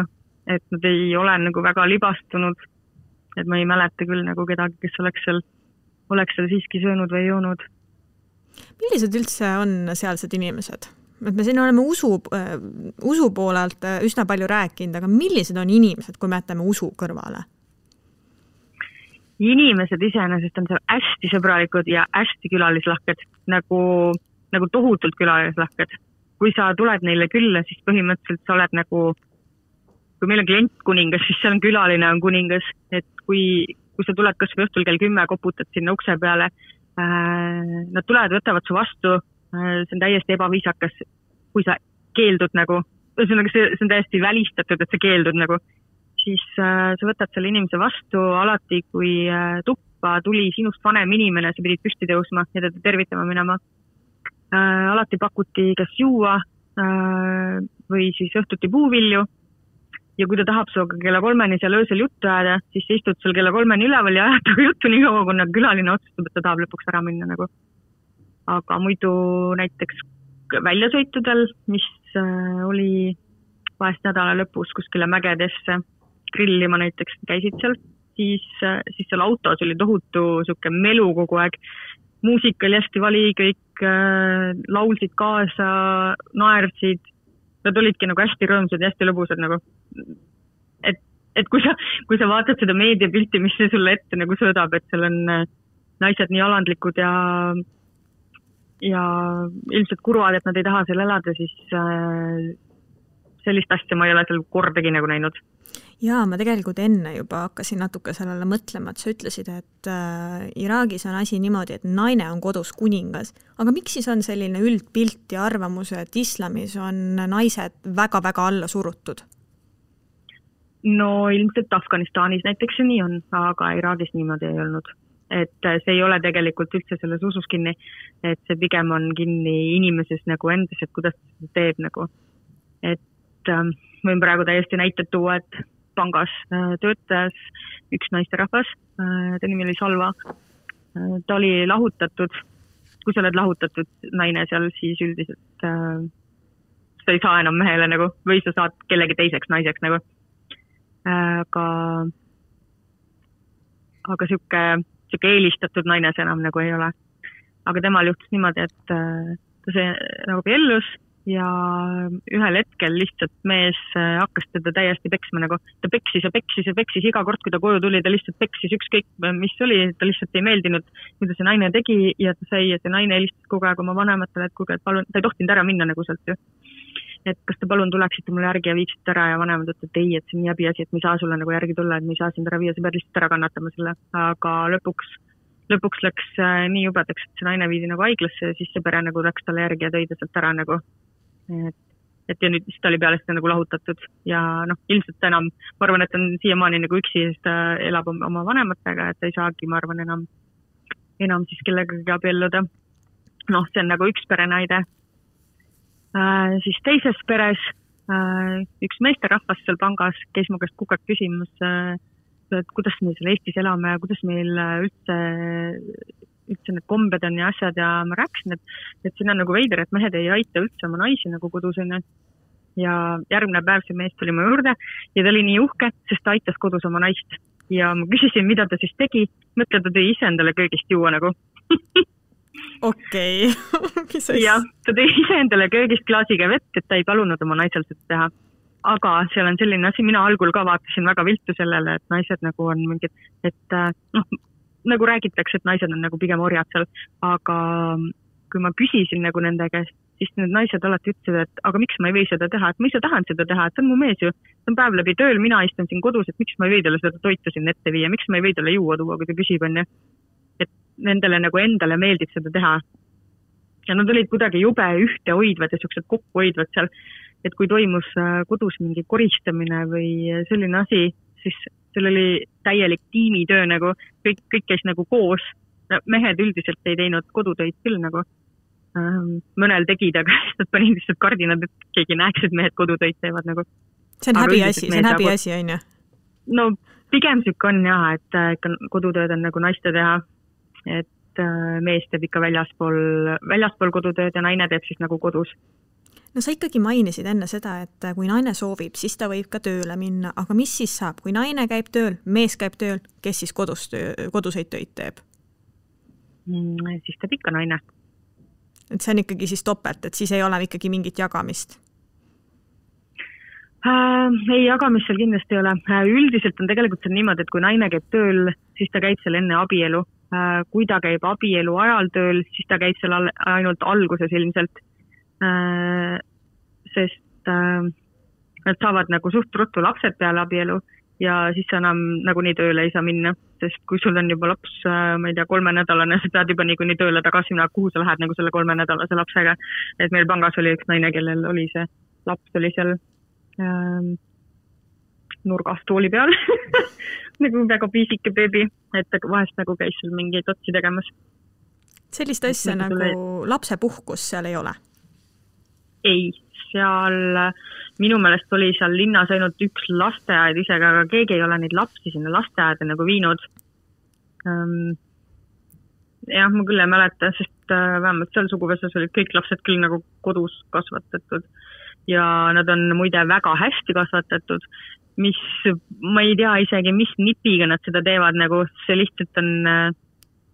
et nad ei ole nagu väga libastunud. et ma ei mäleta küll nagu kedagi, kes oleks seal siiski söönud või joonud. Millised üldse on sealsed inimesed? Et me siin oleme usu poolelt üsna palju rääkinud, aga millised on inimesed, kui me jätame usu kõrvale? Inimesed iseenesest on seal hästi sõbralikud ja hästi külalislahked, nagu tohutult külalislahked. Kui sa tuled neile külla, siis põhimõtteliselt sa oled nagu, kui meil on klient kuningas, siis seal on külaline on kuningas, et kui sa tuled kas või õhtul kell 10, koputad sinna ukse peale, nad tulevad, võtavad su vastu, see on täiesti ebaviisakas, kui sa keeldud nagu, see on täiesti välistatud, et sa keeldud nagu, siis sa võtad selle inimese vastu alati, kui tuppa tuli sinust vanem inimene, sa pidid püsti tõusma ja teda tervitama minema. Alati pakuti kas juua või siis õhtuti puuvilju ja kui ta tahab sinuga kella 3 seal öösel juttu ajada, siis sa istud sul kella 3 üleval ja ajad juttu nii kaua, kui külaline otsustab, et ta tahab lõpuks ära minna nagu. Aga muidu näiteks väljasõitudel, mis oli vahest nädala lõpus kuskile mägedesse grillima näiteks käisid seal, siis seal autos oli tohutu siuke melu kogu aeg. Muusika oli hästi vali, kõik laulsid kaasa, naersid. Nad olidki nagu hästi rõõmsad ja hästi lõbusad nagu. Et kui sa vaatad seda meediapilti, mis see sulle ette nagu sõõdab, et seal on naised nii alandlikud ja ilmselt kurvad, et nad ei taha seal elada, siis sellist asja ma ei ole seal kordagi nagu näinud. Jaa, ma tegelikult enne juba hakkasin natuke sellele mõtlema, et sa ütlesid, et Iraagis on asi niimoodi, et naine on kodus kuningas. Aga miks siis on selline üldpilt ja arvamus, et islamis on naised väga-väga alla surutud? No ilmselt Afganistanis näiteks see nii on, aga Iraagis niimoodi ei olnud. Et see ei ole tegelikult üldse selles usus kinni, et see pigem on kinni inimeses nagu endas, et kuidas ta teeb nagu. Et võin praegu täiesti näited tuua, et pangas töötas üks naisterahvas, ta nimi oli Salva. Ta oli lahutatud, kui sa oled lahutatud naine seal, siis üldiselt sa ei saa enam mehele nagu, või sa saad kellegi teiseks naiseks nagu. Aga siuke eelistatud naine see enam nagu ei ole. Aga temal juhtus niimoodi, et ta see nagu piellus ja ühel hetkel lihtsalt mees hakkas teda täiesti peksma nagu. Ta peksis ja peksis iga kord, kui ta koju tuli, ta lihtsalt peksis ükskõik, mis oli, ta lihtsalt ei meeldinud, mida see naine tegi ja ta sai ja see naine helistas kogu aeg oma vanematele, et kuulge, et palun, ta ei tohtinud ära minna nagu sealt ju. Et kas te palun tuleksite mulle järgi ja viiksite ära ja vanemad ütlevad, et ei, et see on nii häbi asi, et me ei saa sulle nagu järgi tulla, et me ei saa sind ära viia, sa pead lihtsalt ära kannatama selle. Aga lõpuks läks nii jubedaks, et see naine viidi nagu haiglasse ja siis see pere nagu läks talle järgi ja tõi ta sealt ära nagu. Et ja nüüd ta oli peale seda nagu lahutatud ja ilmselt enam, ma arvan, et on siiamaani nagu üksi, sest ta elab oma vanematega, et ta ei saagi, ma arvan, enam siis kellegagi abielluda. See on nagu üks perenaide. Siis teises peres üks meesterahvas seal pangas käis mu käest kukak küsimus, et kuidas me seal Eestis elame ja kuidas meil üldse need kombed on ja asjad ja ma rääkisin, et siin on nagu veider, et mehed ei aita üldse oma naisi nagu kodus on. Ja järgmine päev see mees tuli mu juurde ja ta oli nii uhke, sest ta aitas kodus oma naist ja ma küsisin, mida ta siis tegi, mõtle, ta tõi ise endale köögist juua nagu. Okei. Ja ta tõi ise endale köögist klaasiga vett, et ta ei palunud oma naisel seda teha. Aga seal on selline asi, mina algul ka vaatasin väga viltu sellele, et naised nagu on mingid, et nagu räägitakse, et naised on nagu pigem orjad seal, aga kui ma küsisin nagu nende käest, siis need naised alati ütlesid, et aga miks ma ei või seda teha, et ma ise tahan seda teha, et see on mu mees ju, see on päev läbi tööl, mina istun siin kodus, et miks ma ei või talle seda toitu siin ette viia, miks ma ei või talle juua tuua, kui ta küsib on. Et nendele nagu endale meeldib seda teha. Ja nad olid kuidagi jube ühte hoidvad ja sellised kokku hoidvad seal, et kui toimus kodus mingi koristamine või selline asi, siis seal oli täielik tiimitöö nagu, kõik käis nagu koos. Mehed üldiselt ei teinud kodutöid küll nagu. Mõnel tegid, aga nad panid lihtsalt kardinad, et keegi näeks, et mehed kodutöid teevad nagu. See on häbiasi, on ju? No pigem süük on jah, et kodutööd on nagu naiste teha, et mees teeb ikka väljaspool kodutööd ja naine teeb siis nagu kodus. No sa ikkagi mainisid enne seda, et kui naine soovib, siis ta võib ka tööle minna, aga mis siis saab, kui naine käib tööl, mees käib tööl, kes siis koduseid töid teeb? Siis teeb ikka naine. Et see on ikkagi siis topelt, et siis ei ole ikkagi mingit jagamist? Ei, jagamist seal kindlasti ei ole. Üldiselt on tegelikult see niimoodi, et kui naine käib tööl, siis ta käib seal enne abielu. Kui ta käib abielu ajal tööl, siis ta käib seal ainult alguses ilmselt. Sest nad saavad nagu suht ruttu lapsed peale abielu ja siis enam nagu nii tööle ei saa minna, sest kui sul on juba laps, ma ei tea, 3-nädalane, sa pead juba nii tööle tagasi minna, kuhu sa lähed nagu selle 3-nädalase lapsega. Et meil pangas oli üks naine, kellel oli see laps, oli seal nurgas tooli peal nagu väga piisike beebi, et vahest nagu käis seal mingeid otsi tegemas. Sellist asja nagu lapsepuhkus seal ei ole? Ei, seal minu meelest oli seal linnas ainult üks lasteaed isegi, aga keegi ei ole neid lapsi sinna lasteaeda nagu viinud. Jah, ma küll ei mäleta, sest vähemalt seal suguvõsas olid kõik lapsed küll nagu kodus kasvatatud ja nad on muide väga hästi kasvatatud, mis ma ei tea isegi, mis nipiga nad seda teevad, nagu see lihtsalt on...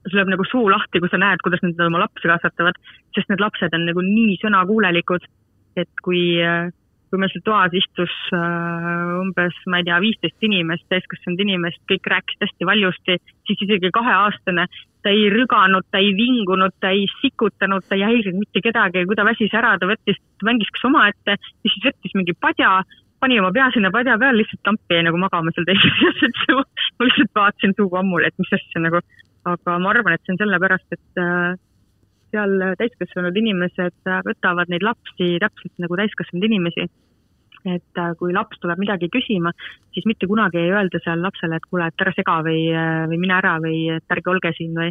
sul läheb nagu suu lahti, kui sa näed, kuidas nad oma lapsi kasvatavad, sest need lapsed on nagu nii sõnakuulelikud, et kui meil seal toas istus umbes, ma ei tea, 15 inimest, täiskasvanud inimest, kõik rääkisid hästi valjusti, siis isegi 2-aastane, ta ei rüganud, ta ei vingunud, ta ei sikutanud, ta ei häirinud mitte kedagi, kui ta väsis ära, ta mängis kas oma ette, ja siis võttis mingi padja, pani oma pea sinna padja peal, lihtsalt tampi jäi nagu magama seal teisest, et ma lihtsalt vaatasin suuga ammul, et mis asja nagu. Aga ma arvan, et see on sellepärast, et seal täiskasvanud inimesed võtavad neid lapsi täpselt nagu täiskasvanud inimesi. Et kui laps tuleb midagi küsima, siis mitte kunagi ei öelda seal lapsele, et kuule, et ära sega või mine ära või et ärge olge siin või.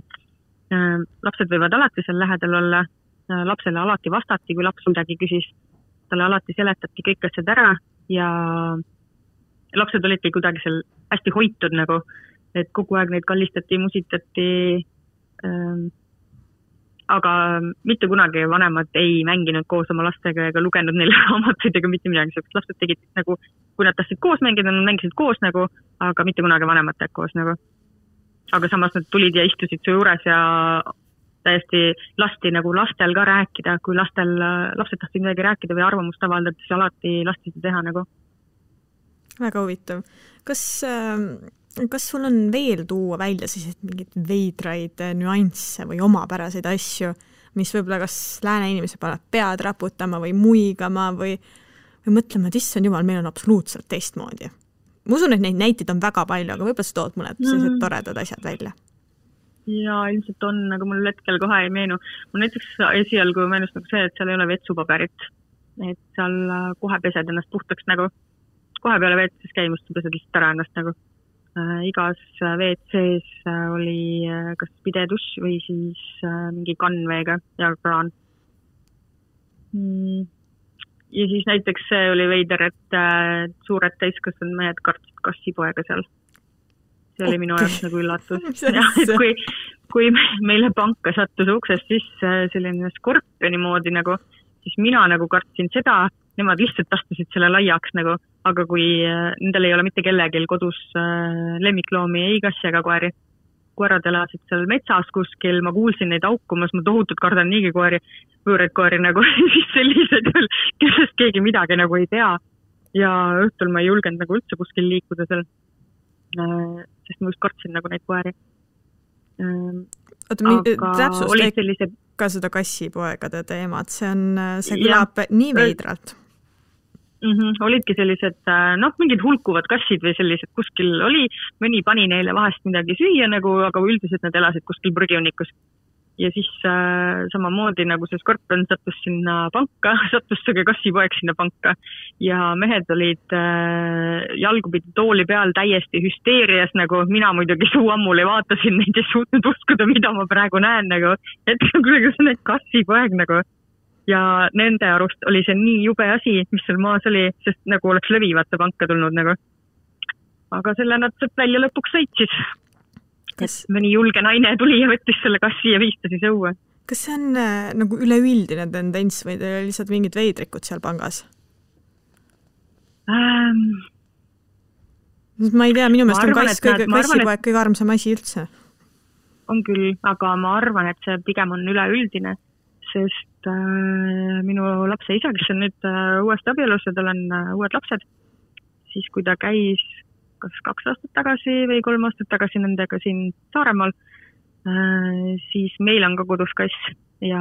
Lapsed võivad alati seal lähedal olla, lapsele alati vastati, kui laps midagi küsis, talle alati seletati kõik asjad ära ja lapsed olidki kuidagi seal hästi hoitud nagu, et kogu aeg neid kallistati, musitati, aga mitte kunagi vanemad ei mänginud koos oma lastega ega lugenud neile raamatuid ega mitte midagi, sest lapsed tegid nagu, kui nad tahtsid koos mängida, nad mängisid koos nagu, aga mitte kunagi vanemad teed koos nagu. Aga samas nad tulid ja istusid su juures ja täiesti lasti nagu lastel ka rääkida, kui lapsed tahtsid midagi rääkida või arvamust avaldada, siis alati lasti seda teha nagu. Väga huvitav. Kas sul on veel tuua välja siis mingid veidraid nüansse või omapäraseid asju, mis võib-olla kas lääne inimese paneb pead raputama või muigama või mõtlema, et issand jumal, meil on absoluutselt teistmoodi. Ma usun, et neid näiteid on väga palju, aga võib-olla sa tood mõned sellised toredad asjad välja. Ja ilmselt on, aga mul hetkel kohe ei meenu. Mul näiteks esialgu meenus nagu see, et seal ei ole vetsupaberit. Et seal kohe pesed ennast puhtaks nagu. Kohe peale veetses käimust pesed lihtsalt ära ennast nagu. Igas WC-s oli kas pideduss või siis mingi kannveega ja kraan. Ja siis näiteks see oli veider, et suured täiskasvanud mehed kartsid kassipoega seal. See oli minu jaoks nagu üllatus. Ja, et kui meile panka sattus uksest sisse selline skorpioni moodi nagu, siis mina nagu kartsin seda, nemad lihtsalt astusid selle laiaks nagu, aga kui nendel ei ole mitte kellegil kodus lemmikloomi, ei kassi ega koeri. Koerad elasid seal metsas kuskil, ma kuulsin neid aukumas, ma tohutult kardan niigi koeri, võõraid koeri nagu, siis sellised, kellest keegi midagi nagu ei tea. Ja õhtul ma ei julgenud nagu üldse kuskil liikuda seal, sest ma just kartsin nagu neid koeri. Täpsust ka seda kassipoegade teemat, see kõlab nii veidralt. Olidki sellised, mingid hulkuvad kassid või sellised kuskil oli, mõni pani neile vahest midagi süüa nagu, aga üldiselt nad elasid kuskil prügiunikus. Ja siis samamoodi nagu see skorpion sattus sinna panka, sattus see kassipoeg sinna panka ja mehed olid jalgupidi tooli peal täiesti hüsteerias nagu, mina muidugi suu ammul ei vaatasin neid ja suutnud uskuda, mida ma praegu näen nagu, et kuidas need kassipoeg nagu. Ja nende arust oli see nii jube asi, mis seal maas oli, sest nagu oleks lõvivate panka tulnud nagu. Aga selle nad välja lõpuks sõitsid. Mõni julge naine tuli ja võttis selle kassi ja viistasis õue. kas see on nagu üleüldine tendents või teil oli lihtsalt mingid veidrikud seal pangas? Ma ei tea, minu meelest on kassipoeg kõige armsam asi üldse. On küll, aga ma arvan, et see pigem on üleüldine, sest minu lapse isa, kes on nüüd uuesti abielus ja tal on uued lapsed, siis kui ta käis kas 2 aastat tagasi või 3 aastat tagasi nendega siin Saaremaal, siis meil on ka kodus kass ja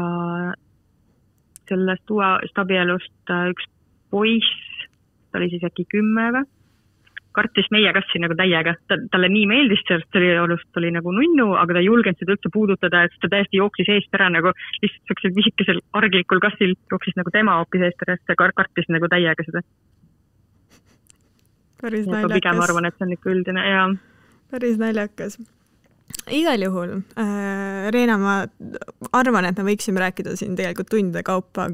sellest uuest abielust üks poiss, ta oli siis äkki 10 või, kartis meie kassi nagu täiega. Talle nii meeldis, sest ta oli nagu nunnu, aga ta ei julgenud seda üldse puudutada, et ta täiesti jooksis eest ära nagu lihtsalt sellisel visikesel arglikul kassil jooksis nagu tema hoopis eest ära, sest ta kartis nagu täiega seda. Päris naljakas. Pigem arvan, et see on ikka üldine, jaa. Päris naljakas. Igal juhul, Reena, ma arvan, et me võiksime rääkida siin tegelikult tundide kaupa,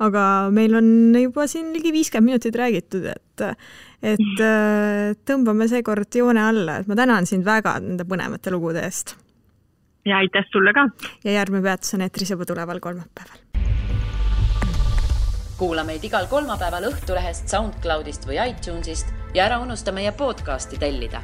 aga meil on juba siin ligi 50 minutit räägitud, et tõmbame seekord joone alla, et ma tänan sind väga nende põnevate lugude eest. Ja aitäh sulle ka. Ja järgmine peatus on eetris juba tuleval kolmapäeval. Kuula meid igal kolmapäeval Õhtulehest, SoundCloudist või iTunesist ja ära unusta meie podcasti tellida.